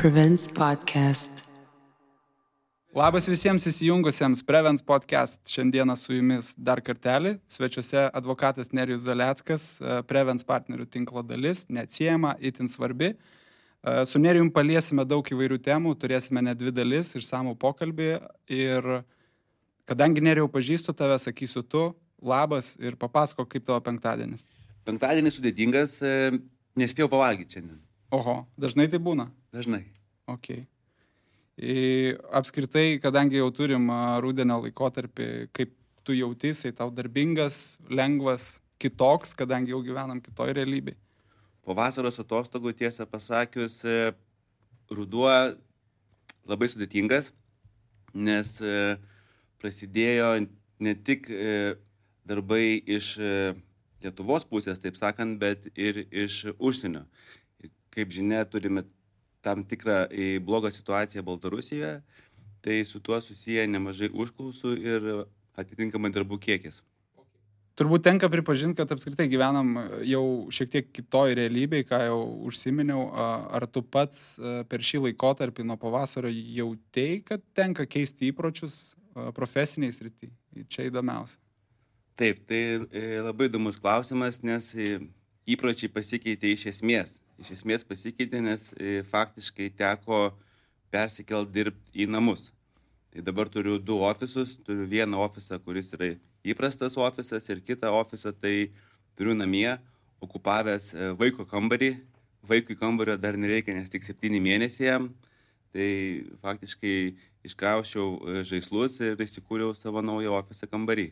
Prevents Podcast. Labas visiems įsijungusiems Prevents Podcast. Šiandieną su jumis dar kartelį. Svečiuose advokatas Nerijus Zaleckas, Prevents partnerių tinklo dalis, neatsiejama, itin svarbi. Su Nerijum paliesime daug įvairių temų, turėsime net 2 dalis, išsamų pokalbį. Ir kadangi Nerijau pažįstu tave, sakysiu tu, labas ir papasako, kaip tavo penktadienis. Penktadienis sudėtingas, nespėjau pavalgyti šiandien. Oho, dažnai tai būna? Dažnai. Okay. Apskritai, kadangi jau turim rudenio laikotarpį, kaip tu jautysi, tau darbingas, lengvas, kitoks, kadangi jau gyvenam kitoj realybėj? Po vasaros atostogų, tiesą pasakius, ruduo labai sudėtingas, nes prasidėjo ne tik darbai iš Lietuvos pusės, taip sakant, bet ir iš užsienio. Kaip žinia, turime tam tikrą blogą situaciją Baltarusijoje, tai su tuo susiję nemažai užklausų ir atitinkamai darbų kiekis. Turbūt tenka pripažinti, kad apskritai gyvenam jau šiek tiek kitoj realybėj, ką jau užsiminiau. Ar tu pats per šį laikotarpį nuo pavasario jautei, kad tenka keisti įpročius profesiniai srity? Čia įdomiausia. Taip, tai labai įdomus klausimas, nes įpročiai pasikeitė iš esmės. Iš esmės pasikeitė, nes faktiškai teko persikelt dirbti į namus. Tai dabar turiu 2 ofisus, turiu vieną ofisą, kuris yra įprastas ofisas ir kitą ofisą tai turiu namie, okupavęs vaiko kambarį. Vaikui kambario dar nereikia, nes tik 7 mėnesiai jam. Tai faktiškai iškrauščiau žaislus ir įsikūriau savo naują ofisą kambarį.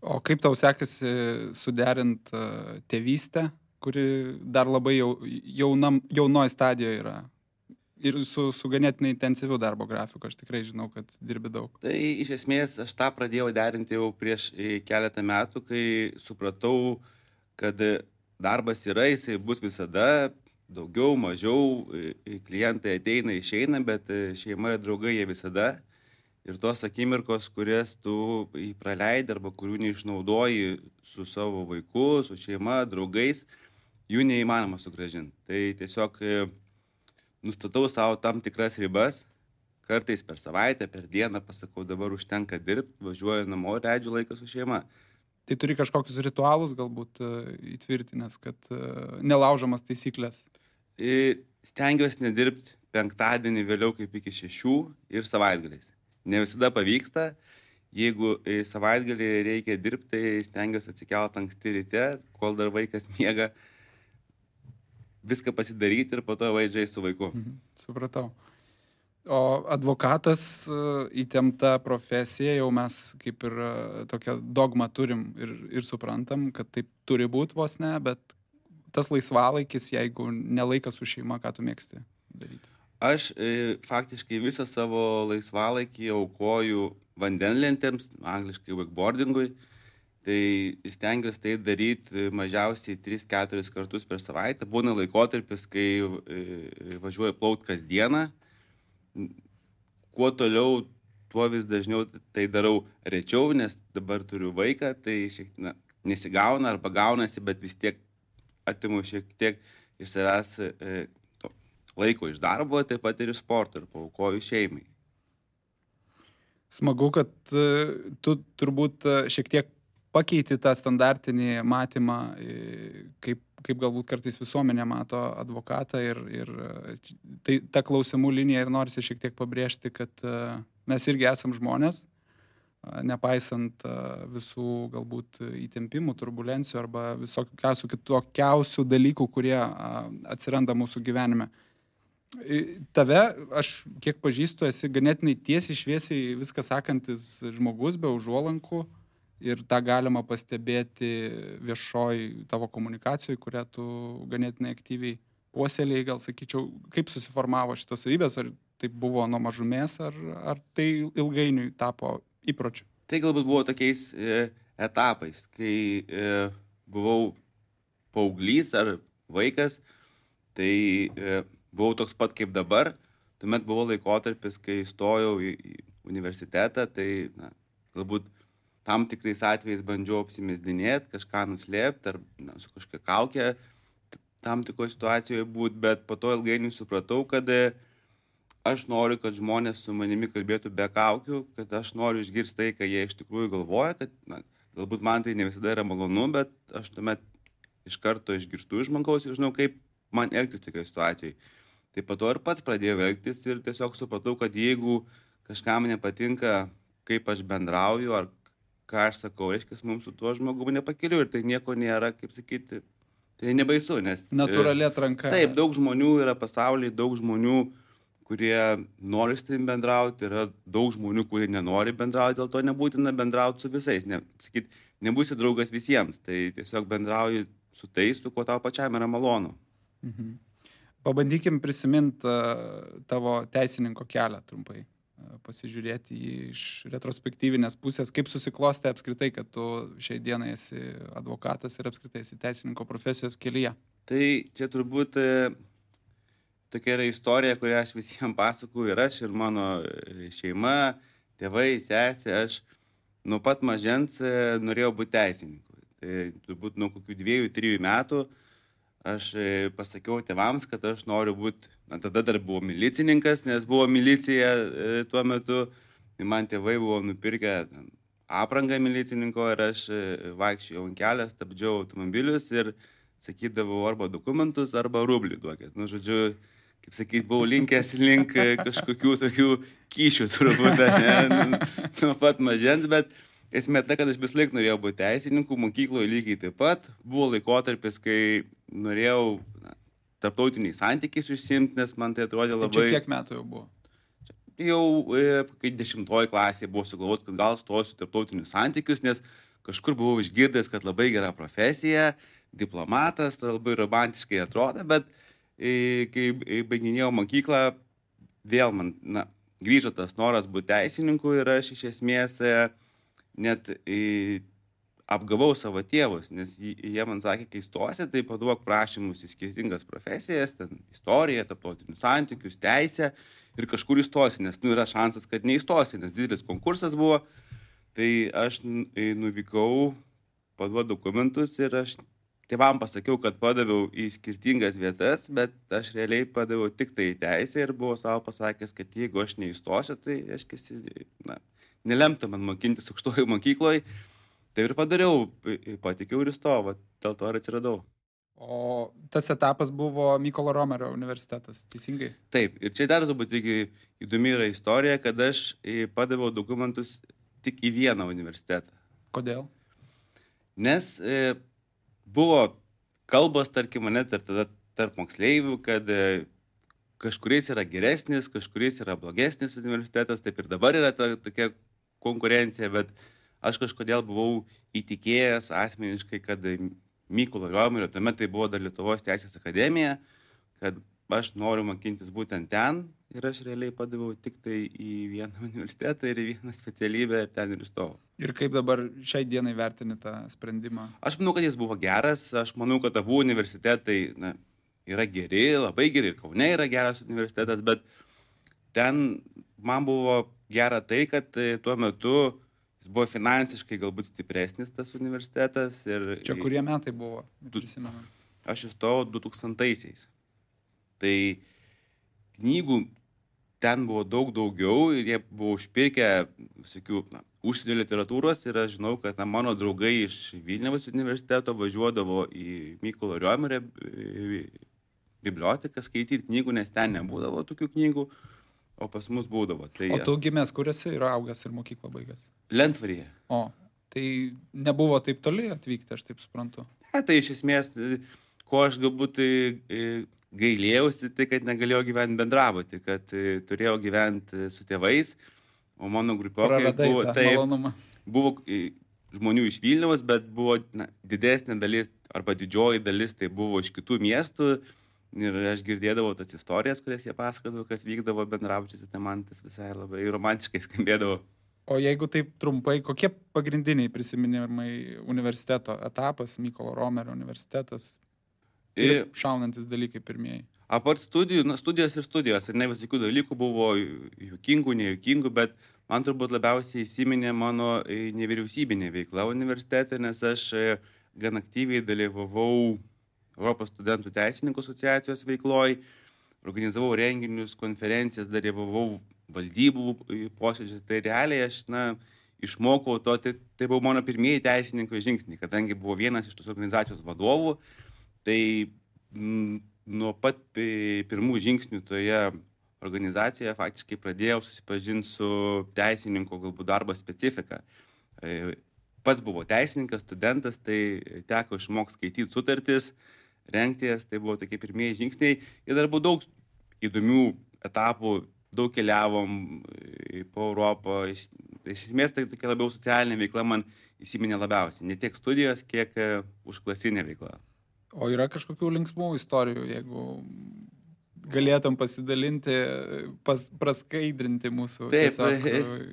O kaip tau sekasi suderint tėvystę, kuri dar labai jaunoj stadijoje yra? Ir su ganėtinai intensyviu darbo grafiku, aš tikrai žinau, kad dirbi daug. Tai iš esmės aš tą pradėjau derinti jau prieš keletą metų, kai supratau, kad darbas yra, jisai bus visada, daugiau, mažiau, klientai ateina, išeina, bet šeima ir draugai jie visada. Ir tos akimirkos, kurias tu praleidi arba kurių neišnaudoji su savo vaiku, su šeima, draugais, jų neįmanoma sugrąžinti. Tai tiesiog nustatau savo tam tikras ribas, kartais per savaitę, per dieną pasakau, dabar užtenka dirbti, važiuoju namo, leidžiu laiką su šeima. Tai turi kažkokius ritualus galbūt įtvirtinęs, kad nelaužomas taisyklės? Stengiuosi nedirbti penktadienį vėliau kaip iki 6 ir savaitgaliais. Ne visada pavyksta. Jeigu savaitgalį reikia dirbti, tai stengiuosi atsikelti anksti ryte, kol dar vaikas miega, viską pasidaryti ir po to važiuoju su vaiku. Supratau. O advokatas įtempta profesija, jau mes kaip ir tokią dogmą turim ir suprantam, kad taip turi būti vos ne, bet tas laisvalaikis, jeigu nelaikas su šeima, ką tu mėgsti daryti? Aš faktiškai visą savo laisvalaikį aukoju vandenlentėms, angliškai wakeboardingui. Tai stengiuosi tai daryti mažiausiai 3-4 kartus per savaitę. Būna laikotarpis, kai važiuoju plaukti kasdieną. Kuo toliau, tuo vis dažniau tai darau rečiau, nes dabar turiu vaiką, tai nesigauna arba gaunasi, bet vis tiek atimu šiek tiek iš savęs laiko iš darbo, taip pat ir iš sporto ir paaukoju šeimai. Smagu, kad tu turbūt šiek tiek pakeiti tą standartinį matymą, kaip galbūt kartais visuomenė mato advokatą ir tai ta klausimų linija ir norisi šiek tiek pabrėžti, kad mes irgi esam žmonės, nepaisant visų galbūt įtempimų, turbulencijų arba visokiausių kitokiausių dalykų, kurie atsiranda mūsų gyvenime. Tave, aš kiek pažįstu, esi ganėtinai tiesiai šviesiai viską sakantis žmogus be užuolankų ir tą galima pastebėti viešoj tavo komunikacijoje, kurią tu ganėtinai aktyviai puoselėjai, gal sakyčiau, kaip susiformavo šitos savybės, ar tai buvo nuo mažumės, ar tai ilgainiui tapo įpročiu? Tai galbūt buvo tokiais etapais, kai buvau paauglys ar vaikas, tai buvau toks pat kaip dabar. Tuomet buvo laikotarpis, kai stojau į universitetą, tai galbūt tam tikrais atvejais bandžiau apsimesdinėti, kažką nuslėpti ar su kažkokia kaukė tam tikroje situacijoje būti, bet po to ilgainiui supratau, kad aš noriu, kad žmonės su manimi kalbėtų be kaukių, kad aš noriu išgirsti tai, ką jie iš tikrųjų galvoja, kad galbūt man tai ne visada yra malonu, bet aš tuomet iš karto išgirstu iš žmogaus ir žinau, kaip man elgtis tokioje situacijoje. Tai po to ir pats pradėjau elgtis ir tiesiog supratau, kad jeigu kažkam nepatinka, kaip aš bendrauju ar ką aš sakau, reiškia, mums su tuo žmogumi nepakeliu ir tai nieko nėra, kaip sakyti, tai nebaisu, nes... Natūrali atranka. Taip, daug žmonių yra pasaulyje, daug žmonių, kurie nori su tavim bendrauti, yra daug žmonių, kurie nenori bendrauti, dėl to nebūtina bendrauti su visais, nebūsi draugas visiems, tai tiesiog bendrauji su tais, su kuo tau pačiam yra malonu. Mhm. Pabandykim prisiminti tavo teisininko kelią trumpai, pasižiūrėti jį iš retrospektyvinės pusės, kaip susiklostė apskritai, kad tu šiai dienai esi advokatas ir apskritai esi teisininko profesijos kelyje. Tai čia turbūt tokia yra istorija, kurią aš visiems pasakoju ir aš, ir mano šeima, tėvai, sesė, aš nuo pat mažens norėjau būti teisininku. Tai turbūt nuo kokių 2-3 metų aš pasakiau tėvams, kad aš noriu būti, tada dar buvau milicininkas, nes buvo milicija tuo metu, tai man tėvai buvo nupirkę aprangą milicininko ir aš vaikščiojau ant kelio, stabdžiau automobilius ir sakydavau arba dokumentus, arba rublį duokit. Žodžiu, kaip sakyt, buvau linkęs link kažkokių tokių kyšių turbūt, nuo pat mažens, bet esmė ta, kad aš vis laik norėjau būti teisininku, mokykloje lygiai taip pat. Buvo laikotarpis, kai norėjau tarptautiniais santykiais užsiimti, nes man tai atrodė labai... Čia kiek metų jau buvo? Jau kai 10 klasėje buvo sugalvoti, kad gal stosiu tarptautinius santykius, nes kažkur buvau išgirdęs, kad labai gera profesija, diplomatas, tai labai romantiškai atrodo, bet kai baiginėjau mokyklą, vėl man grįžo tas noras būti teisininku ir aš iš esmės net apgavau savo tėvus, nes jie man sakė, kai stosi, tai paduok prašymus į skirtingas profesijas, ten istoriją, tarptautinius santykius, teisę ir kažkur įstosi, nes yra šansas, kad neįstosi, nes didelis konkursas buvo. Tai aš nuvykau, paduodu dokumentus ir aš tėvam pasakiau, kad padaviau į skirtingas vietas, bet aš realiai padaviau tik tai teisę ir buvau savo pasakęs, kad jeigu aš neįstosiu, tai aš nelemta man mokintis aukštoje mokykloje. Tai ir padariau, patikiau ir įstojau, dėl to ir atsiradau. O tas etapas buvo Mykolo Romerio universitetas, teisingai? Taip, ir čia dar turbūt įdomi yra istorija, kad aš padaviau dokumentus tik į vieną universitetą. Kodėl? Nes buvo kalbos, tarkim, mane tarp moksleivių, kad kažkuris yra geresnis, kažkuris yra blogesnis universitetas, taip ir dabar yra tokia konkurencija, bet aš kažkodėl buvau įtikėjęs asmeniškai, kad Mykolo Romerio, tuomet tai buvo dar Lietuvos teisės akademija, kad aš noriu mokintis būtent ten ir aš realiai padaviau tik tai į vieną universitetą ir į vieną specialybę ir ten ir įstojau. Ir kaip dabar šiai dienai vertini tą sprendimą? Aš manau, kad jis buvo geras, aš manau, kad abu universitetai yra geri, labai geri, ir Kaune yra geras universitetas, bet ten man buvo gera tai, kad tuo metu jis buvo finansiškai galbūt stipresnis tas universitetas. Ir čia kurie metai buvo, prisimenu? Aš įstojau 2000-aisiais. Tai knygų ten buvo daug daugiau ir jie buvo užpirkę visokių užsienio literatūros ir aš žinau, kad mano draugai iš Vilniaus universiteto važiuodavo į Mykolo Romerio biblioteką skaityti knygų, nes ten nebūdavo tokių knygų, o pas mus būdavo. Tai, o tu gimęs, kur esi ir augęs ir mokyklą baigęs? Lentvaryje. O, tai nebuvo taip toli atvykti, aš taip suprantu. Tai iš esmės, ko aš galbūt gailėjausi, tai kad negalėjau gyventi bendrabuty, kad turėjau gyventi su tėvais, o mano grupiokai buvo žmonių iš Vilniaus, bet buvo didesnė dalis arba didžioji dalis tai buvo iš kitų miestų ir aš girdėdavau tas istorijas, kurias jie pasakodavo, kas vykdavo bendrabučiuose, tai man tas visai labai romantiškai skambėdavo. O jeigu taip trumpai, kokie pagrindiniai prisiminimai universiteto etapas, Mykolo Romerio universitetas? Ir šaunantis dalykai pirmieji. Apart studijų, studijos ir studijos. Ir ne visokių dalykų buvo juokingų, nejuokingų, bet man turbūt labiausiai įsiminė mano nevyriausybinė veikla universitete, nes aš gan aktyviai dalyvavau Europos studentų teisininkų asociacijos veikloj. organizavau renginius, konferencijas, dalyvavau valdybų posėdžių. Tai realiai aš, išmokau to, tai buvo mano pirmieji teisininko žingsniai, kadangi buvo vienas iš tos organizacijos vadovų, tai nuo pat pirmų žingsnių toje organizacijoje faktiškai pradėjau susipažinti su teisininko galbūt darbo specifika. Pats buvo teisininkas, studentas, tai teko išmokti skaityti sutartis, rengties, tai buvo tokie pirmieji žingsniai. Ir dar buvo daug įdomių etapų, daug keliavom po Europą. Iš esmės tai tokia labiau socialinė veikla man įsiminė labiausiai. Ne tiek studijos, kiek užklasinė veikla. O yra kažkokių linksmų istorijų, jeigu galėtum pasidalinti, praskaidrinti mūsų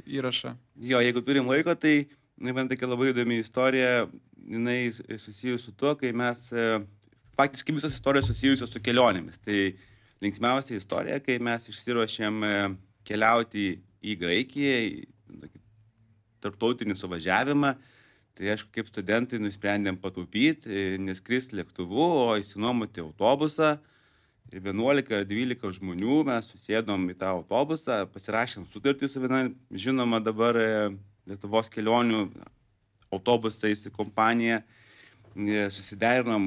įrašą? Jo, jeigu turim laiko, tai man tokia labai įdomi istorija, jinai susijusi su tuo, kai mes, faktiškai visos istorijos susijusios su kelionėmis. Tai linksmiausia istorija, kai mes išsiruošėm keliauti į Graikiją, į tarptautinį suvažiavimą. Tai aišku, kaip studentai nusprendėm pataupyti, neskristi lėktuvu, o įsinuomoti autobusą. Ir 11-12 žmonių mes susėdom į tą autobusą, pasirašėm sutartį su viena žinoma dabar Lietuvos kelionių autobusais kompanija, susiderinom,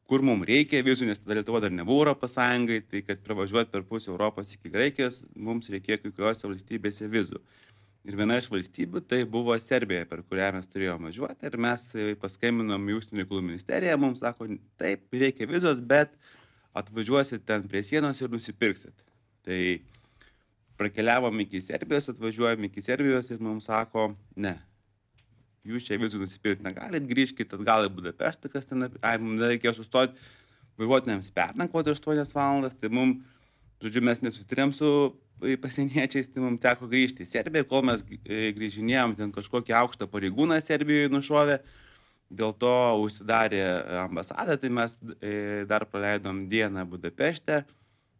kur mums reikia vizų, nes tada Lietuva dar nebuvo Europos Sąjungai, tai kad pravažiuoti per pusę Europos iki Graikijos, mums reikėjo kai kuriuose valstybėse vizų. Ir viena iš valstybių tai buvo Serbija, per kurią mes turėjome važiuoti, ir mes paskambinom į Užsienio reikalų ministeriją, mums sako, taip, reikia vizos, bet atvažiuosit ten prie sienos ir nusipirksit. Tai prakeliavom iki Serbijos, atvažiuojam iki Serbijos ir mums sako, ne, jūs čia vizų nusipirkti negalit, grįžkit atgal į Budapeštą, kas ten, mums reikėjo sustoti vairuotojams pernakvoti 8 valandas, tai mums, žodžiu, mes nesusitarėm su pasieniečiais, tai mums teko grįžti į Serbiją, kol mes grįžinėjom, ten kažkokį aukštą pareigūną Serbijoje nušovė, dėl to užsidarė ambasada, tai mes dar praleidom dieną Budapešte,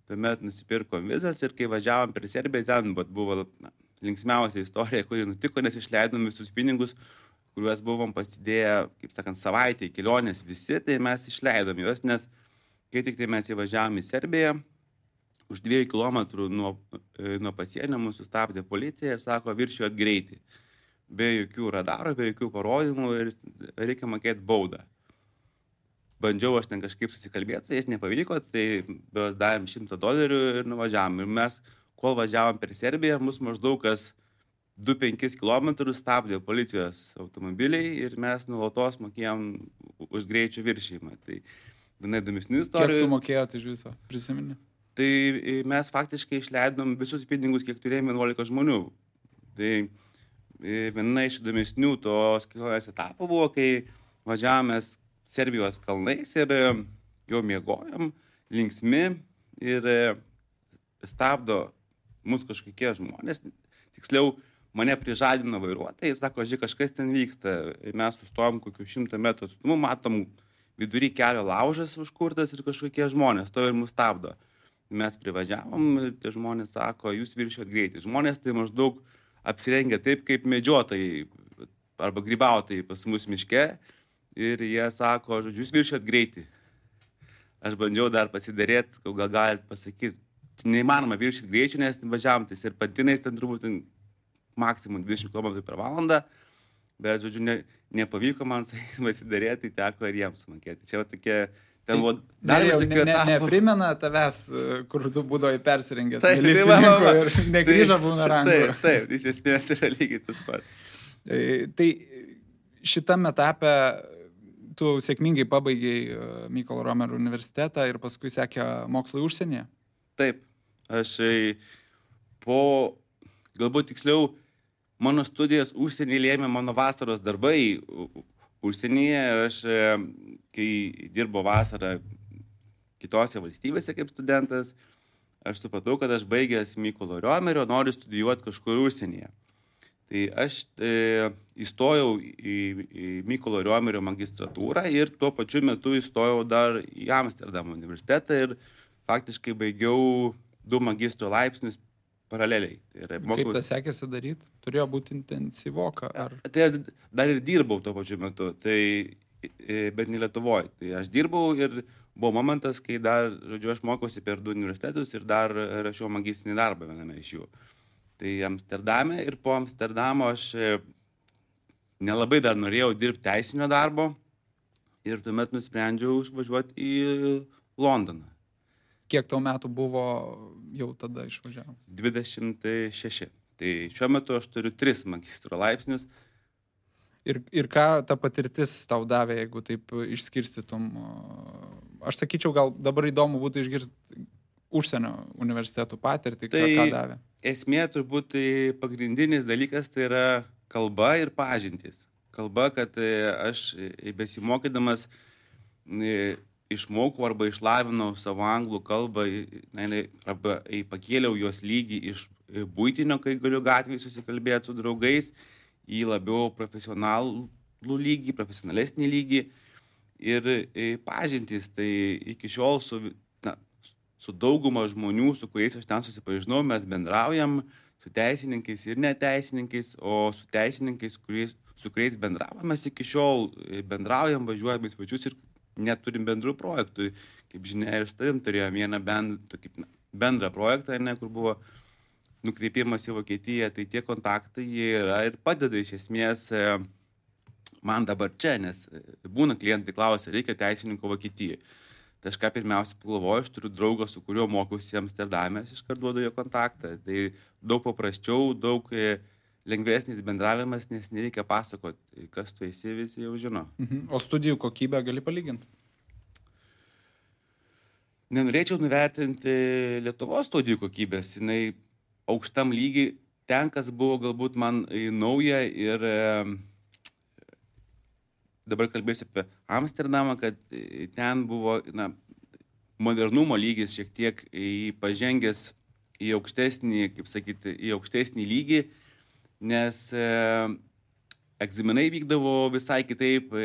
tuomet nusipirkom vizas ir kai važiavom per Serbiją, ten buvo linksmiausia istorija, kuri nutiko, nes išleidom visus pinigus, kuriuos buvom pasidėję, kaip sakant, savaitę į kelionės visi, tai mes išleidom juos, nes kai tik tai mes įvažiavom į Serbiją, už 2 kilometrų nuo pasienio mūsų sustabdė policija ir sako, viršijot greitį. Be jokių radarų, be jokių parodymų ir reikia mokėti baudą. Bandžiau aš ten kažkaip susikalbėti, jis nepavyko, tai davėm $100 ir nuvažiavom. Ir mes, kol važiavom per Serbiją, mus maždaug kas 2-5 km stabdė policijos automobiliai ir mes nuolatos mokėjom už greičio viršijimą. Tai viena įdomesnių istorijų. Kiek sumokėjote iš viso, prisimeni? Tai mes faktiškai išleidom visus pinigus, kiek turėjome 11 žmonių. Tai viena iš įdomesnių tos kelionės etapų buvo, kai važiavomės Serbijos kalnais ir jau miegojom, linksmi ir stabdo mus kažkokie žmonės. Tiksliau, mane prižadino vairuotojai, sako, žiūrėk, kažkas ten vyksta. Mes sustojom kokių 100 metrų atstumu, matom vidury kelio laužas užkurtas ir kažkokie žmonės to ir mus stabdo. Mes privažiavom ir tie žmonės sako, jūs viršijot greitį. Žmonės tai maždaug apsirengia taip, kaip medžiotojai arba grybautojai pas mus miške ir jie sako, žodžiu, jūs viršijot greitį. Aš bandžiau dar pasidarėti, gal galit pasakyti, neįmanoma viršyti greičių, nes važiavom tais ir pantinais ten turbūt maksimum 20 km per valandą, bet, žodžiu, nepavyko man pasidarėti, tai teko ir jiems sumokėti. Čia tokie... Neprimena tavęs, kur tu būdavai persirengęs milicininku ir negrįžo bumerangų. Taip, iš esmės yra lygiai tas pats. Tai šitame etape tu sėkmingai pabaigiai Mykolo Romerio universitetą ir paskui sekė mokslai užsienyje? Taip, aš galbūt tiksliau, mano studijas užsienyje lėmė mano vasaros darbai užsienyje ir aš, kai dirbo vasarą kitose valstybėse kaip studentas, aš supratau, kad aš baigęs Mykolo Romerio noriu studijuoti kažkur užsienyje. Tai aš įstojau į Mykolo Romerio magistratūrą ir tuo pačiu metu įstojau dar į Amsterdamo universitetą ir faktiškai baigiau 2 magistro laipsnius paraleliai. Kaip tas sekėsi daryti? Turėjo būti intensyvoka? Tai aš dar ir dirbau tuo pačiu metu, bet ne Lietuvoje. Tai aš dirbau ir buvo momentas, kai dar, žodžiu, aš mokiausi per 2 universitetus ir dar rašiau magistrinį darbą viename iš jų. Tai Amsterdame ir po Amsterdamo aš nelabai dar norėjau dirbti teisinio darbo ir tuomet nusprendžiau išvažiuoti į Londoną. Kiek tau metų buvo jau tada išvažiavus? 26. Tai šiuo metu aš turiu 3 magistro laipsnius. Ir ką ta patirtis tau davė, jeigu taip išskirstytum? Aš sakyčiau, gal dabar įdomu būtų išgirsti užsienio universitetų patirtį, ką davė. Esmė turbūt pagrindinis dalykas tai yra kalba ir pažintys. Kalba, kad aš besimokydamas išmokau arba išlavinau savo anglų kalbą, arba pakėliau jos lygį iš buitinio, kai galiu gatvėje susikalbėti su draugais, į labiau profesionalų lygį, profesionalesnį lygį. Ir pažintys, tai iki šiol su dauguma žmonių, su kuriais aš ten susipažinau, mes bendraujam su teisininkais ir neteisininkais, o su teisininkais, su kuriais bendravome, mes iki šiol bendraujam, važiuojam į svečius ir neturim bendrų projektų. Kaip žinia, ir su tavim turėjom vieną bendrą projektą, kur buvo nukreipimas į Vokietiją, tai tie kontaktai jie yra ir padeda iš esmės man dabar čia, nes būna klientai klausia, reikia teisininko Vokietijoje. Tai aš ką pirmiausia pagalvoju, aš turiu draugą, su kuriuo mokiausi Amsterdame, aš iškart duodu jo kontaktą. Tai daug paprasčiau, daug lengvesnis bendravimas, nes nereikia pasakoti, kas tu esi, visi jau žino. O studijų kokybę gali palyginti? Nenorėčiau nuvertinti Lietuvos studijų kokybės, jinai aukštam lygiai, ten, kas buvo galbūt man nauja ir dabar kalbėsiu apie Amsterdamą, kad ten buvo modernumo lygis šiek tiek pažengęs į aukštesnį, kaip sakyti, į aukštesnį lygį, nes egzaminai vykdavo visai kitaip.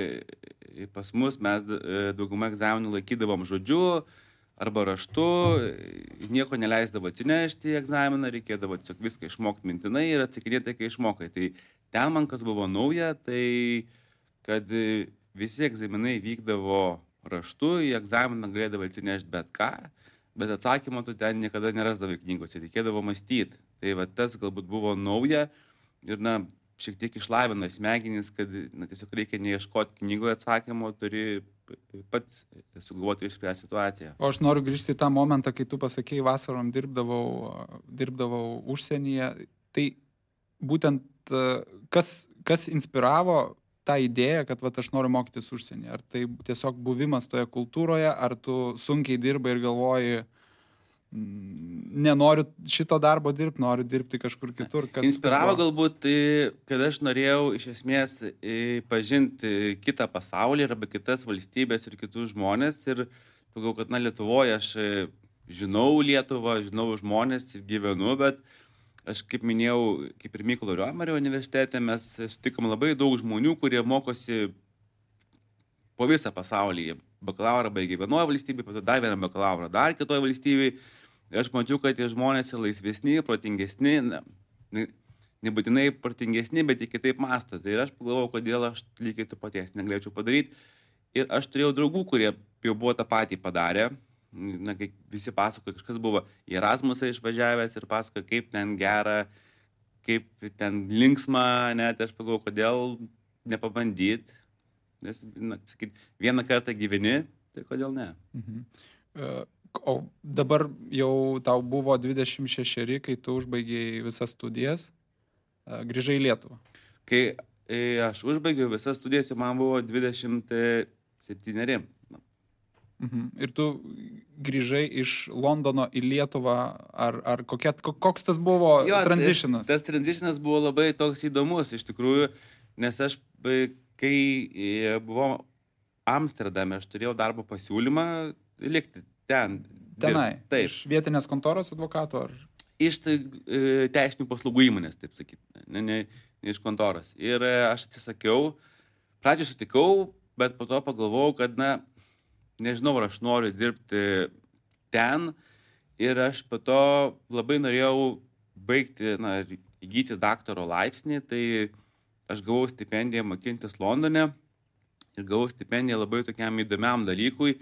Pas mus mes daugumą egzaminų laikydavom žodžiu arba raštu, nieko neleisdavo atsinešti į egzaminą, reikėdavo tiesiog viską išmokti mintinai ir atsakinėti, kai išmokai. Tai ten man kas buvo nauja, tai kad visi egzaminai vykdavo raštu, į egzaminą galėdavo atsinešti bet ką, bet atsakymą tu ten niekada nerasdavai knygose, reikėdavo mąstyti. Tai va tas galbūt buvo nauja ir šiek tiek išlavino smegenis, kad tiesiog reikia neieškoti knygoje atsakymo, turi pats sugalvoti ir išspręsti situaciją. O aš noriu grįžti į tą momentą, kai tu pasakėjai, vasarom dirbdavau užsienyje. Tai būtent kas inspiravo tą idėją, kad aš noriu mokytis užsienyje? Ar tai tiesiog buvimas toje kultūroje, ar tu sunkiai dirbai ir galvoji, nenoriu šito darbo dirbti, noriu dirbti kažkur kitur? Inspiravo galbūt, kad aš norėjau iš esmės pažinti kitą pasaulį arba kitas valstybės ir kitus žmonės. Ir pagalvojau, kad Lietuvoje aš žinau Lietuvą, žinau žmonės ir gyvenu, bet aš, kaip minėjau, kaip ir Mykolo Riomerio universitete, mes sutikom labai daug žmonių, kurie mokosi po visą pasaulį. Bakalaurą baigė vienoje valstybėje, po to dar vieną bakalaurą dar kitoje valstybėje. Ir aš mačiau, kad tie žmonės yra laisvesni, protingesni, nebūtinai protingesni, bet ir kitaip mąsto. Tai ir aš pagalvojau, kodėl aš lygiai to paties negalėčiau padaryti. Ir aš turėjau draugų, kurie jau buvo tą patį padarę. Kai visi pasakoja, kažkas buvo į Erasmusą išvažiavęs ir pasakoja, kaip ten gera, kaip ten linksma, net aš pagalvojau, kodėl nepabandyti. Nes, vieną kartą gyveni, tai kodėl ne? O dabar jau tau buvo 26, kai tu užbaigėjai visas studijas, grįžai į Lietuvą. Kai aš užbaigiau visas studijas, man buvo 27. Ir tu grįžai iš Londono į Lietuvą, ar koks tas buvo transitionas? Tas transitionas buvo labai toks įdomus iš tikrųjų, nes aš, kai buvau Amsterdame, aš turėjau darbo pasiūlymą likti tenai. Taip. Iš vietinės kontoros advokato? Iš teisinių paslaugų įmonės, taip sakyti, ne iš kontoros. Ir aš atsisakiau, pradžioj sutikau, bet po to pagalvojau, kad, nežinau, ar aš noriu dirbti ten. Ir aš po to labai norėjau baigti, įgyti daktaro laipsnį, tai aš gavau stipendiją mokintis Londone ir gavau stipendiją labai tokiam įdomiam dalykui.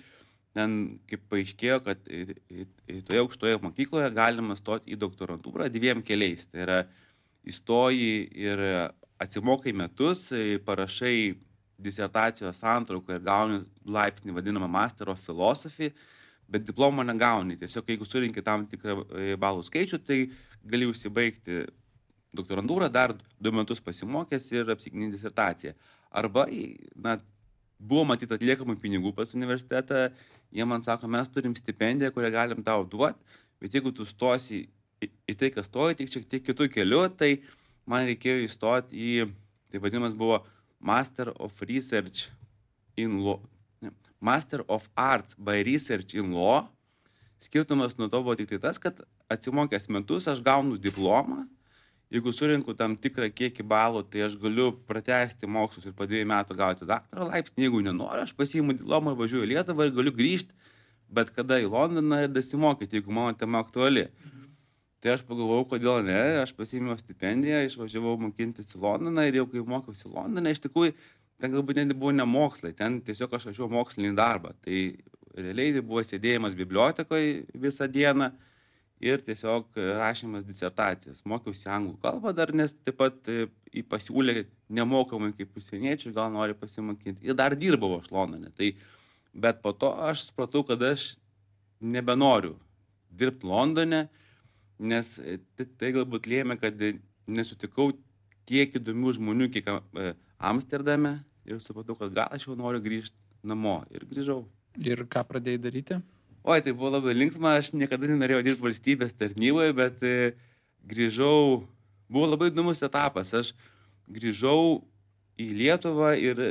ten kaip paaiškėjo, kad toje aukštoje mokykloje galima stoti į doktorantūrą 2 keliais. Tai yra įstoji ir atsimokai metus, parašai disertacijos santrauką ir gauni laipsnį vadinamą Master of Philosophy, bet diplomo negauni. Tiesiog jeigu surinki tam tikrą balų skaičių, tai gali užsibaigti doktorantūrą, dar 2 metus pasimokęs ir apsiginti disertaciją. Arba, buvo matyti atliekamų pinigų pas universitetą, jie man sako, mes turim stipendiją, kurią galim tau duoti, bet jeigu tu stosi į tai, kas stoji, tik šiek tiek kitų kelių, tai man reikėjo įstoti į, tai vadinamas buvo Master of Research in Law, Master of Arts by Research in Law. Skirtumas nuo to buvo tik tai tas, kad atsimokęs metus aš gaunu diplomą. Jeigu surinku tam tikrą kiekį balų, tai aš galiu pratęsti mokslus ir po 2 metų gauti daktaro laipsnį. Jeigu nenoriu, aš pasiimu diplomą ir važiuoju į Lietuvą ir galiu grįžti bet kada į Londoną ir dasimokyti, jeigu mano tema aktuali. Tai aš pagalvojau, kodėl ne, aš pasiėmiau stipendiją, išvažiavau mokintis į Londoną ir jau kai mokiausi į Londoną, iš tikrųjų, ten galbūt net buvo ne mokslai, ten tiesiog aš rašiau mokslinį darbą. Tai realiai tai buvo sėdėjimas bibliotekoje visą dieną ir tiesiog rašymas disertacijas. Mokiausi anglų kalbą dar, nes taip pat pasiūlė nemokamai kaip užsieniečiai, gal nori pasimokinti. Ir dar dirbau aš Londone. Bet po to aš supratau, kad aš nebenoriu dirbti Londone, nes tai galbūt lėmė, kad nesutikau tiek įdomių žmonių, kiek Amsterdame, ir supratau, kad gal aš jau noriu grįžti namo. Ir grįžau. Ir ką pradėjai daryti? Oi, tai buvo labai linksma, aš niekada nenorėjau dirbti valstybės tarnyboje, bet grįžau, buvo labai įdomus etapas. Aš grįžau į Lietuvą ir,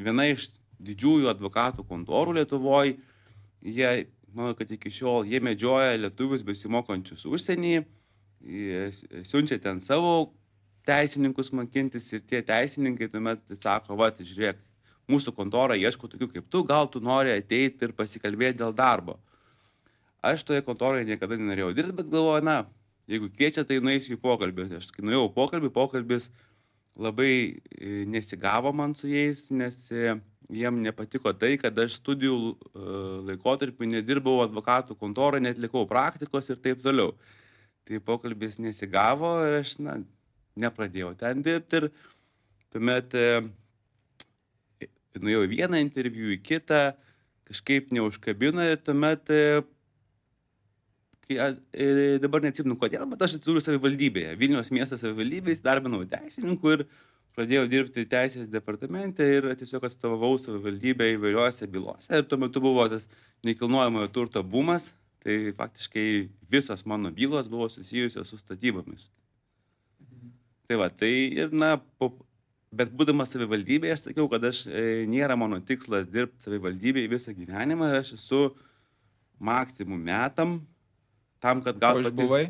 viena iš didžiųjų advokatų kontorų Lietuvoje, jie, manau, kad iki šiol, jie medžioja lietuvius besimokančius užsienį, siunčia ten savo teisininkus mokintis ir tie teisininkai tuomet sako, žiūrėk, mūsų kontorą ieško tokių kaip tu, gal tu nori ateiti ir pasikalbėti dėl darbo. Aš toje kontoroje niekada nenorėjau dirbti, bet galvoju, jeigu kviečia, tai nueisiu į pokalbį. Aš kai nuėjau pokalbis labai nesigavo man su jais, nes jiem nepatiko tai, kad aš studijų laikotarpį nedirbau advokatų kontorą, netlikau praktikos ir taip toliau. Tai pokalbis nesigavo ir aš, nepradėjau ten dirbti ir tuomet nuėjau į vieną interviu, į kitą, kažkaip neužkabino ir tuomet, dabar neatsimenu kodėl, bet aš atsidūriau savivaldybėje, Vilniaus miesto savivaldybėje, įsidarbinau teisininkų ir pradėjau dirbti teisės departamente ir tiesiog atstovavau savivaldybę įvairiuose bylose. Ir tuo metu buvo tas nekilnojamojo turto bumas, tai faktiškai visos mano bylos buvo susijusios su statybomis. Tai ir bet būdamas savivaldybėje, aš sakiau, kad nėra mano tikslas dirbti savivaldybėje visą gyvenimą ir aš esu maksimum metam tam, kad gal... O išbuvai?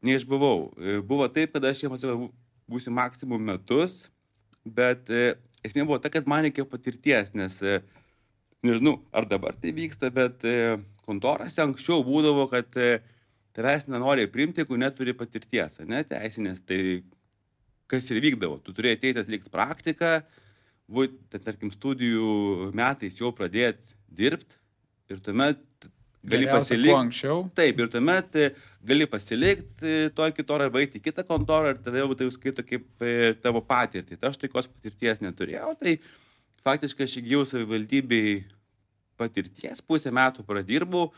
Neišbuvau. Buvo taip, kad aš jiems būsiu maksimum metus, bet esmė buvo ta, kad man reikėjo patirties, nes nežinau, ar dabar tai vyksta, bet kontorose anksčiau būdavo, kad tavęs nenori priimti, jeigu neturi patirties, teisinės, tai kas ir vykdavo. Tu turėjai ateiti atlikti praktiką, tarkim, studijų metais jau pradėti dirbti ir tuomet gali pasilikti. Anksčiau. Taip, ir tuomet gali pasilikti toj kitorą arba eiti į kitą kontorą ir tada jau tai skaito kaip tavo patirtį. Tai aš tokios patirties neturėjau, tai faktiškai aš įgijau savivaldybėj patirties, 5 metų pradirbau,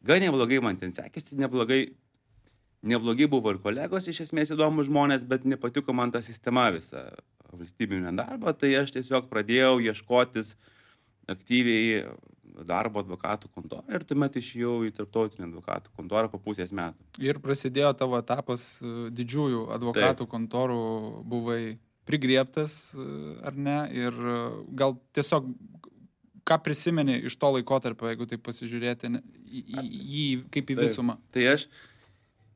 gan neblogai man ten sekėsi, neblogai buvo ir kolegos, iš esmės įdomus žmonės, bet nepatiko man ta sistema visa valstybinio darbo, tai aš tiesiog pradėjau ieškotis aktyviai darbo advokatų kontorą ir tuomet išėjau į tarptautinę advokatų kontorą po 5 metų. Ir prasidėjo tavo etapas didžiųjų advokatų kontorų, buvai prigriebtas, ar ne? Ir gal tiesiog, ką prisimeni iš to laikotarpio, jeigu taip pasižiūrėti į jį kaip į visumą? Tai aš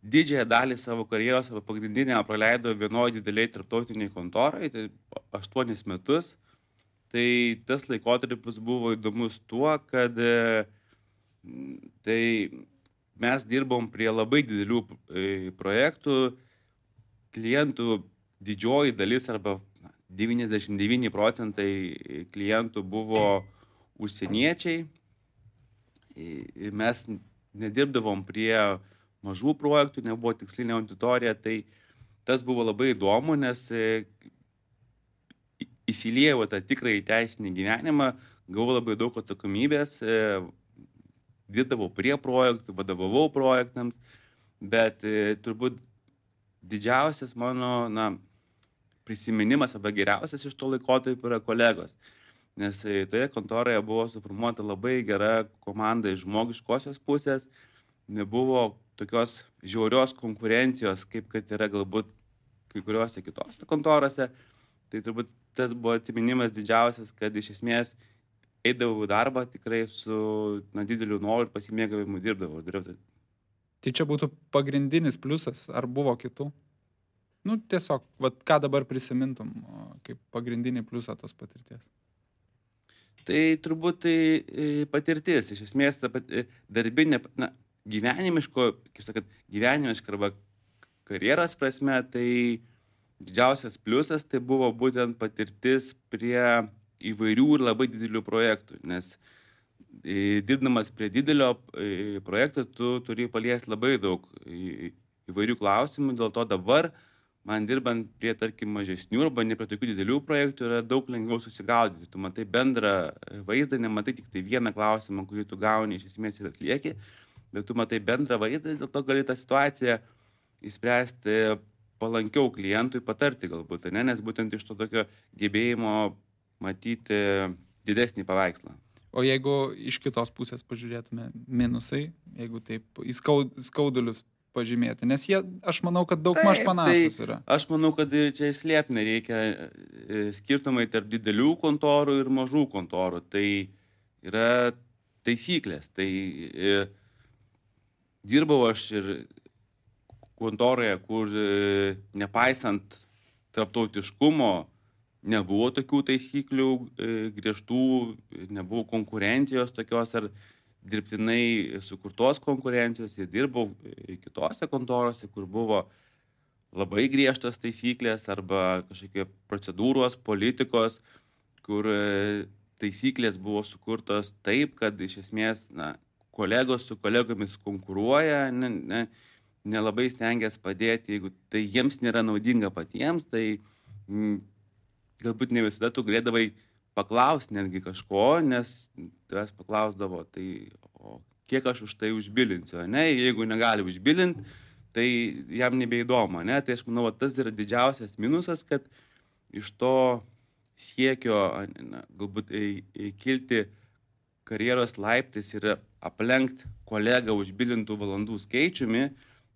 didžiąją dalį savo karjeros, savo pagrindinę praleidau vienoje dideliai tarptautiniai kontorai, tai 8 metus. Tai tas laikotarpis buvo įdomus tuo, kad tai mes dirbom prie labai didelių projektų, klientų didžioji dalis arba 99% klientų buvo užsieniečiai. Ir mes nedirbdavom prie mažų projektų, nebuvo tikslinė auditorija, tai tas buvo labai įdomu, nes įsiliejau tą tikrąjį teisinį gyvenimą, gavau labai daug atsakomybės, dirbdavau prie projektų, vadovavau projektams, bet turbūt didžiausias mano prisiminimas arba geriausias iš to laikotarpio yra kolegos. Nes toje kontoroje buvo suformuota labai gera komanda iš žmogiškosios pusės, nebuvo tokios žiaurios konkurencijos, kaip kad yra galbūt kai kuriuose kitose kontorose. Tai turbūt tas buvo atsiminimas didžiausias, kad iš esmės eidavau į darbą tikrai su dideliu noru ir pasimėgavimu dirbdavau. Tai čia būtų pagrindinis pliusas, ar buvo kitų? Tiesiog, ką dabar prisimintum kaip pagrindinį pliusą tos patirties? Tai turbūt tai patirtis, iš esmės darbinė, gyvenimiška arba karjeros prasme, tai didžiausias pliusas tai buvo būtent patirtis prie įvairių ir labai didelių projektų, nes dirbdamas prie didelio projekto tu turi paliesti labai daug įvairių klausimų, dėl to dabar man dirbant prie, tarkim, mažesnių arba ne prie tokių didelių projektų yra daug lengviau susigaudyti. Tu matai bendrą vaizdą, nematai tik tai vieną klausimą, kurį tu gauni iš esmės ir atlieki, bet tu matai bendrą vaizdą, dėl to gali tą situaciją įspręsti palankiau klientui, patarti galbūt, nes būtent iš to tokio gebėjimo matyti didesnį paveikslą. O jeigu iš kitos pusės pažiūrėtume minusai, jeigu taip į skaudulius pažymėti, nes jie, aš manau, kad daug maž panašus yra. Aš manau, kad čia slėpti nereikia skirtumai tarp didelių kontorų ir mažų kontorų. Tai yra taisyklės. Tai dirbau aš ir kontoroje, kur nepaisant tarptautiškumo nebuvo tokių taisyklių griežtų, nebuvo konkurencijos tokios ar dirbtinai sukurtos konkurencijos, ir dirbau kitose kontorose, kur buvo labai griežtos taisyklės arba kažkokie procedūros, politikos, kur taisyklės buvo sukurtos taip, kad iš esmės kolegos su kolegomis konkuruoja, nelabai stengiasi padėti, jeigu tai jiems nėra naudinga patiems, tai galbūt ne visada tu galėdavai paklausti netgi kažko, nes tavęs paklausdavo, tai o kiek aš už tai užbilinsiu, jeigu negali užbilinti, tai jam nebeįdomu, tai aš manau, tas yra didžiausias minusas, kad iš to siekio galbūt kilti karjeros laiptais ir aplenkti kolegą užbilintų valandų skaičiumi,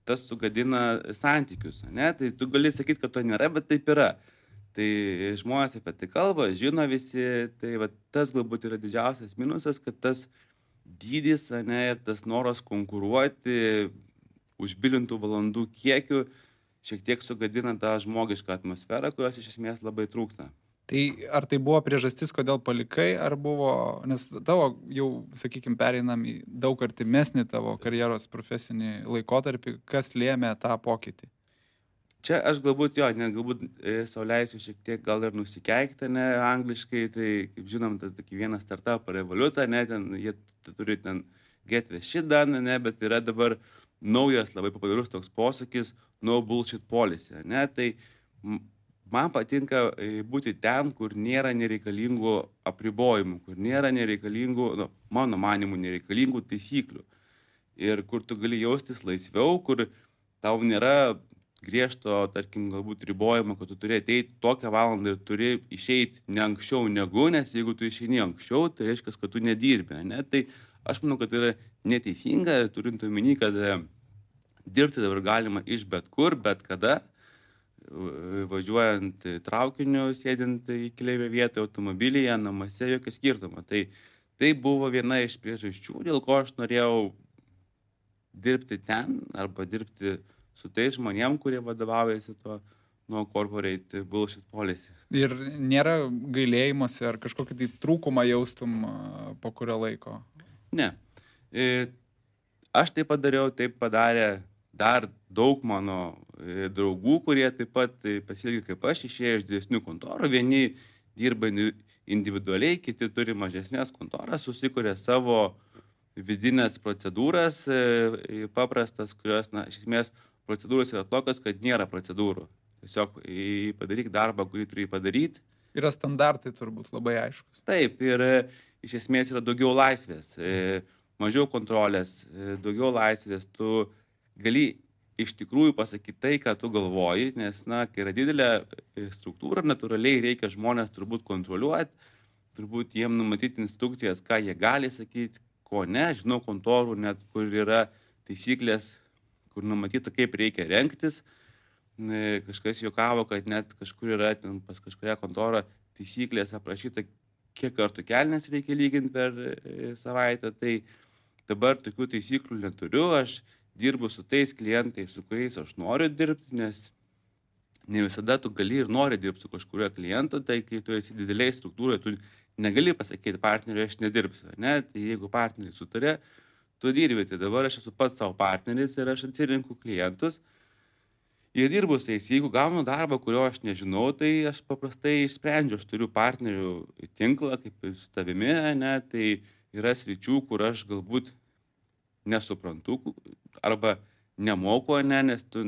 tas sugadina santykius, tai tu gali sakyti, kad to nėra, bet taip yra. Tai žmonės apie tai kalba, žino visi, tai tas galbūt yra didžiausias minusas, kad tas dydis, ir tas noras konkuruoti užbilintų valandų kiekiu šiek tiek sugadina tą žmogišką atmosferą, kurios iš esmės labai trūksta. Tai ar tai buvo priežastis, kodėl palikai, ar buvo, nes tavo jau, sakykime, pereinam į daug artimesnį tavo karjeros profesinį laikotarpį, kas lėmė tą pokytį? Čia aš galbūt galbūt sau leisiu šiek tiek gal ir nusikeikti, angliškai, tai kaip žinom, tai tokį vieną startupą Revolut, ten jie turi ten get the shit done, bet yra dabar naujas labai populiarus toks posakis no bullshit policy, tai man patinka būti ten, kur nėra nereikalingų apribojimų, kur nėra nereikalingų, mano manimų nereikalingų taisyklių ir kur tu gali jaustis laisviau, kur tau nėra griežto, tarkim, galbūt ribojimo, kad tu turi ateiti tokią valandą ir turi išeiti ne anksčiau negu, nes jeigu tu išeini anksčiau, tai reiškia, kad tu nedirbi, Tai aš manau, kad tai yra neteisinga, turint omeny, kad dirbti dabar galima iš bet kur, bet kada, važiuojant traukiniu, sėdint į keleivio vietą, automobilyje, namuose, jokio skirtumo. Tai buvo viena iš priežasčių, dėl ko aš norėjau dirbti ten arba dirbti su tais žmonėm, kurie vadovaujasi tuo nuo corporate bullshit policy. Ir nėra gailėjimosi ar kažkokį tai trūkumą jaustum po kurio laiko? Ne. Aš tai padariau, taip padarė dar daug mano draugų, kurie taip pat pasielgė kaip aš, išėjo iš didesnių kontorų. Vieni dirba individualiai, kiti turi mažesnės kontoras, susikuria savo vidinės procedūras, paprastas, kurios, iš esmės, procedūros yra tokios, kad nėra procedūrų. Tiesiog padaryk darbą, kurį turi padaryti. Yra standartai turbūt labai aiškus. Taip, ir iš esmės yra daugiau laisvės, mažiau kontrolės, daugiau laisvės. Tu gali iš tikrųjų pasakyti tai, ką tu galvoji, nes, kai yra didelė struktūra, natūraliai reikia žmonės turbūt kontroliuoti, turbūt jiem numatyti instrukcijas, ką jie gali sakyti, ko ne. Žinau kontorų net, kur yra taisyklės, kur numatyta, kaip reikia rengtis. Kažkas juokavo, kad net kažkur yra pas kažkoje kontorą taisyklės aprašyta, kiek kartų kelnes reikia lyginti per savaitę. Tai dabar tokių taisyklių neturiu, aš dirbu su tais klientais, su kuriais aš noriu dirbti, nes ne visada tu gali ir nori dirbti su kažkurio klientu, tai kai tu esi dideliai struktūroje, tu negali pasakyti partneriui, aš nedirbsiu, ne? Tai jeigu partneriai sutarė, tu dirbi, tai dabar aš esu pats savo partneris ir aš atsirinku klientus. Ir dirbu su jais, jeigu gaunu darbą, kurio aš nežinau, tai aš paprastai išsprendžiu, aš turiu partnerių tinklą, kaip ir su tavimi, ne? Tai yra sričių, kur aš galbūt nesuprantu arba nemoku, ne? Nes tu,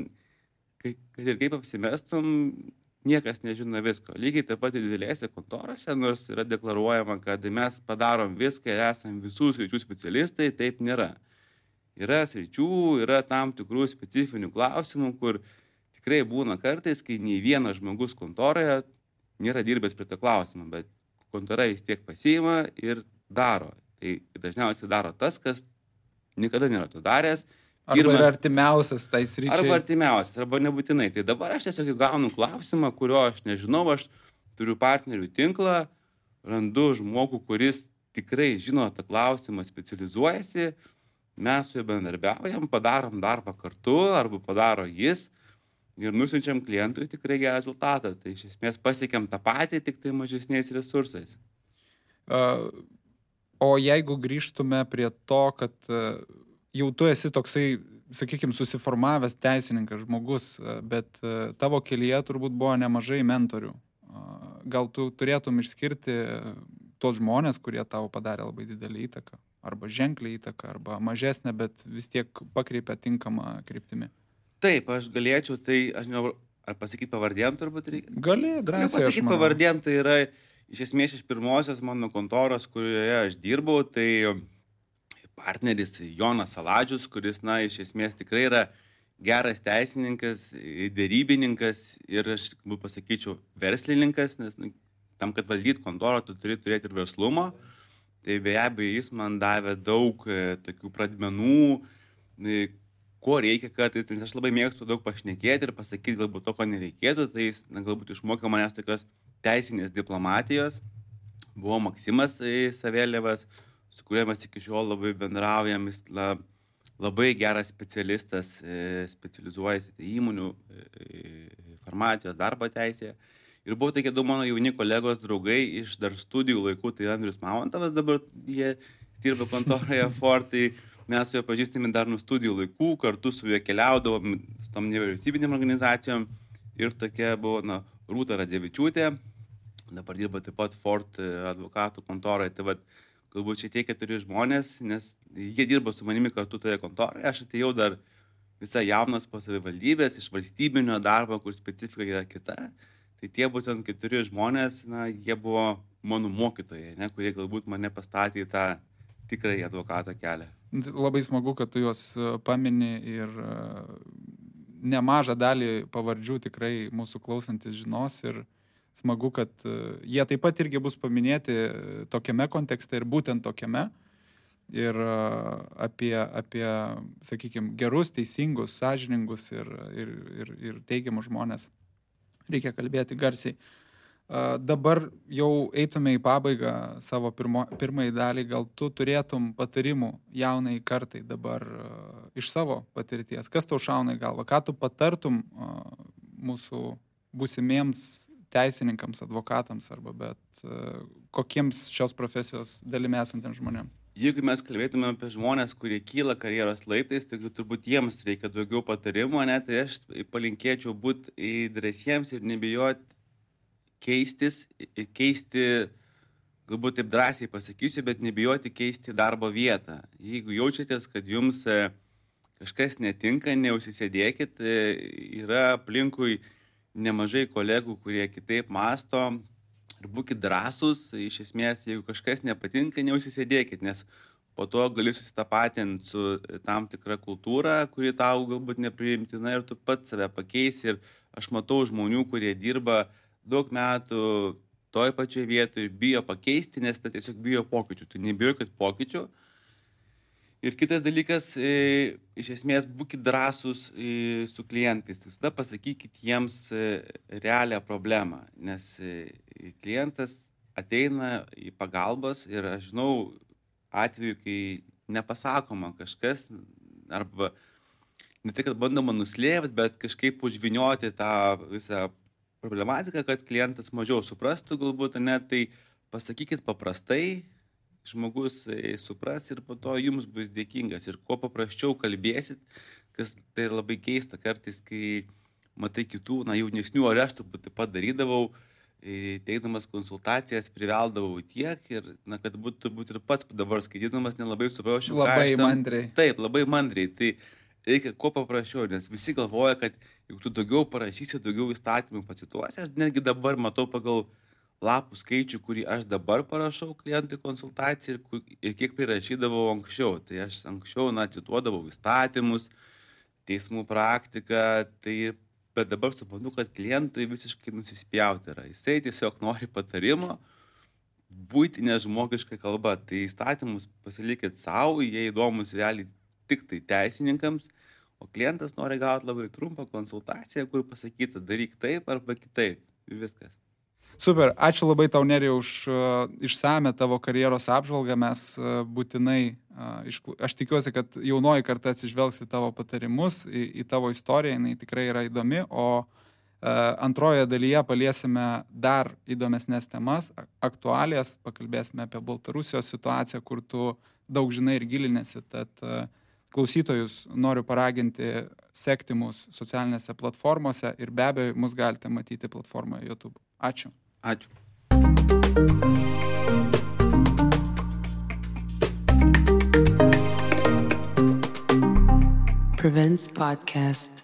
kad ir kaip apsimestum, niekas nežino visko. Lygiai taip pat ir didelėse kontorose, nors yra deklaruojama, kad mes padarom viską ir esam visų sričių specialistai, taip nėra. Yra sričių, yra tam tikrų specifinių klausimų, kur tikrai būna kartais, kai nei vienas žmogus kontoroje nėra dirbęs prie to klausimą, bet kontora vis tiek pasiima ir daro. Tai dažniausiai daro tas, kas niekada nėra to daręs. Arba yra artimiausias tai sričiai. Arba artimiausias, arba nebūtinai. Tai dabar aš tiesiog gaunu klausimą, kurio aš nežinau, aš turiu partnerių tinklą, randu žmogų, kuris tikrai žino tą klausimą, specializuojasi, mes su juo bendarbiaujam, padarom darbą kartu, arba padaro jis ir nusiunčiam klientui tikrai gerą rezultatą. Tai iš esmės pasiekėm tą patį, tik tai mažesniais resursais. O jeigu grįžtume prie to, kad jau tu esi toksai, sakykime, susiformavęs teisininkas žmogus, bet tavo kelyje turbūt buvo nemažai mentorių. Gal tu turėtum išskirti tos žmonės, kurie tau padarė labai didelį įtaką, arba ženklį įtaką, arba mažesnę, bet vis tiek pakreipia tinkamą kryptimį? Taip, aš galėčiau, tai aš žinau, ar pasakyti pavardėm turbūt reikia? Gali, drąsiai. Pasakyti pavardėm, tai yra iš esmės iš pirmosios mano kontoros, kurioje aš dirbau, tai partneris Jonas Saladžius, kuris, iš esmės tikrai yra geras teisininkas, dėrybininkas ir aš pasakyčiau verslininkas, nes tam, kad valdyti kontorą, tu turi turėti ir verslumo. Tai be abejo, jis man davė daug tokių pradmenų, ko reikia, kad aš labai mėgstu daug pašnekėti ir pasakyti galbūt to, ko nereikėtų, tai jis galbūt išmokė manęs tokios teisinės diplomatijos. Buvo Maksimas Savėlievas, su kuriuo mes iki šiol labai bendraujam, jis labai geras specialistas, specializuojasi įmonių farmacijos darbo teisėje. Ir buvo tokie du mano jauni kolegos draugai iš dar studijų laikų, tai Andrius Mamontovas, dabar jie dirba kontoroje Ford, tai mes su juo pažįstami dar nuo studijų laikų, kartu su juo keliaudavom su tom nevyriausybinėm organizacijom ir tokia buvo Rūta Radzevičiūtė, dabar dirba taip pat Ford advokatų kontoroje. Tai galbūt šitie 4 žmonės, nes jie dirbo su manimi kartu toje kontoroje, aš atėjau dar visai jaunas po savivaldybės, iš valstybinio darbo, kur specifika yra kita. Tai tie būtent 4 žmonės, jie buvo mano mokytojai, kurie galbūt mane pastatė į tą tikrąjį advokato kelią. Labai smagu, kad tu juos pamini ir nemažą dalį pavardžių tikrai mūsų klausantis žinos ir smagu, kad jie taip pat irgi bus paminėti tokiame kontekste ir būtent tokiame. Ir apie sakykime, gerus, teisingus, sąžiningus ir teigiamus žmonės reikia kalbėti garsiai. Dabar jau eitume į pabaigą savo pirmąjį dalį. Gal tu turėtum patarimų jaunai kartai dabar iš savo patirties? Kas tau šauna į galvą? Ką tu patartum mūsų būsimiems teisininkams, advokatams arba kokiems šios profesijos dalimi esantiems žmonėms? Jeigu mes kalbėtume apie žmonės, kurie kyla karjeros laiptais, tai turbūt jiems reikia daugiau patarimų, tai aš palinkėčiau būti drąsiems ir nebijoti keisti galbūt taip drąsiai pasakysiu, bet nebijoti keisti darbo vietą. Jeigu jaučiatės, kad jums kažkas netinka, neužsisėdėkit, yra aplinkui nemažai kolegų, kurie kitaip masto ir būkit drąsūs. Iš esmės, jeigu kažkas nepatinka, neužsisėdėkit, nes po to gali susitapatinti su tam tikra kultūra, kuri tau galbūt nepriimtina ir tu pats save pakeisi. Ir aš matau žmonių, kurie dirba daug metų toj pačioj vietoj ir bijo pakeisti, nes tai tiesiog bijo pokyčių. Tu nebijokit pokyčių. Ir kitas dalykas, iš esmės, būkit drąsūs su klientais. Visada pasakykit jiems realią problemą, nes klientas ateina į pagalbos ir aš žinau atveju, kai nepasakoma kažkas, arba ne tai, kad bandoma nuslėpti, bet kažkaip užvinioti tą visą problematiką, kad klientas mažiau suprastų galbūt, tai pasakykit paprastai, žmogus supras ir po to jums bus dėkingas. Ir kuo paprasčiau kalbėsit, kas tai labai keista kartais, kai matai kitų, jaunesnių, ar aš turbūt taip pat darydavau, teikdamas konsultacijas, priveldavau tiek ir, kad būtų turbūt ir pats dabar skaitydamas nelabai suprasčiau. Labai mandriai. Taip, labai mandriai. Tai reikia kuo paprasčiau, nes visi galvoja, kad jeigu tu daugiau parašysi, daugiau įstatymų pacituosi, aš netgi dabar matau pagal lapų skaičių, kurį aš dabar parašau klientui konsultaciją ir kiek prirašydavau anksčiau. Tai aš anksčiau, cituodavau įstatymus, teismų praktiką, bet dabar suprantu, kad klientui visiškai nusispjauti yra. Jisai tiesiog nori patarimo, buitinė žmogiška kalba. Tai įstatymus pasilikit savo, jie įdomus realiai tik tai teisininkams, o klientas nori gauti labai trumpą konsultaciją, kur pasakyta, daryk taip arba kitaip. Viskas. Super, ačiū labai tau, Nerijau, už išsame tavo karjeros apžvalgą. Mes būtinai, aš tikiuosi, kad jaunoji karta atsižvelgs į tavo patarimus, į tavo istoriją, jinai tikrai yra įdomi, o antrojoje dalyje paliesime dar įdomesnės temas, aktualijas, pakalbėsime apie Baltarusijos situaciją, kur tu daug žinai ir gilinėsi, tad klausytojus noriu paraginti sekti mus socialinėse platformose ir be abejo mus galite matyti platformoje YouTube. Ačiū. Ačiū. Prevents Podcast.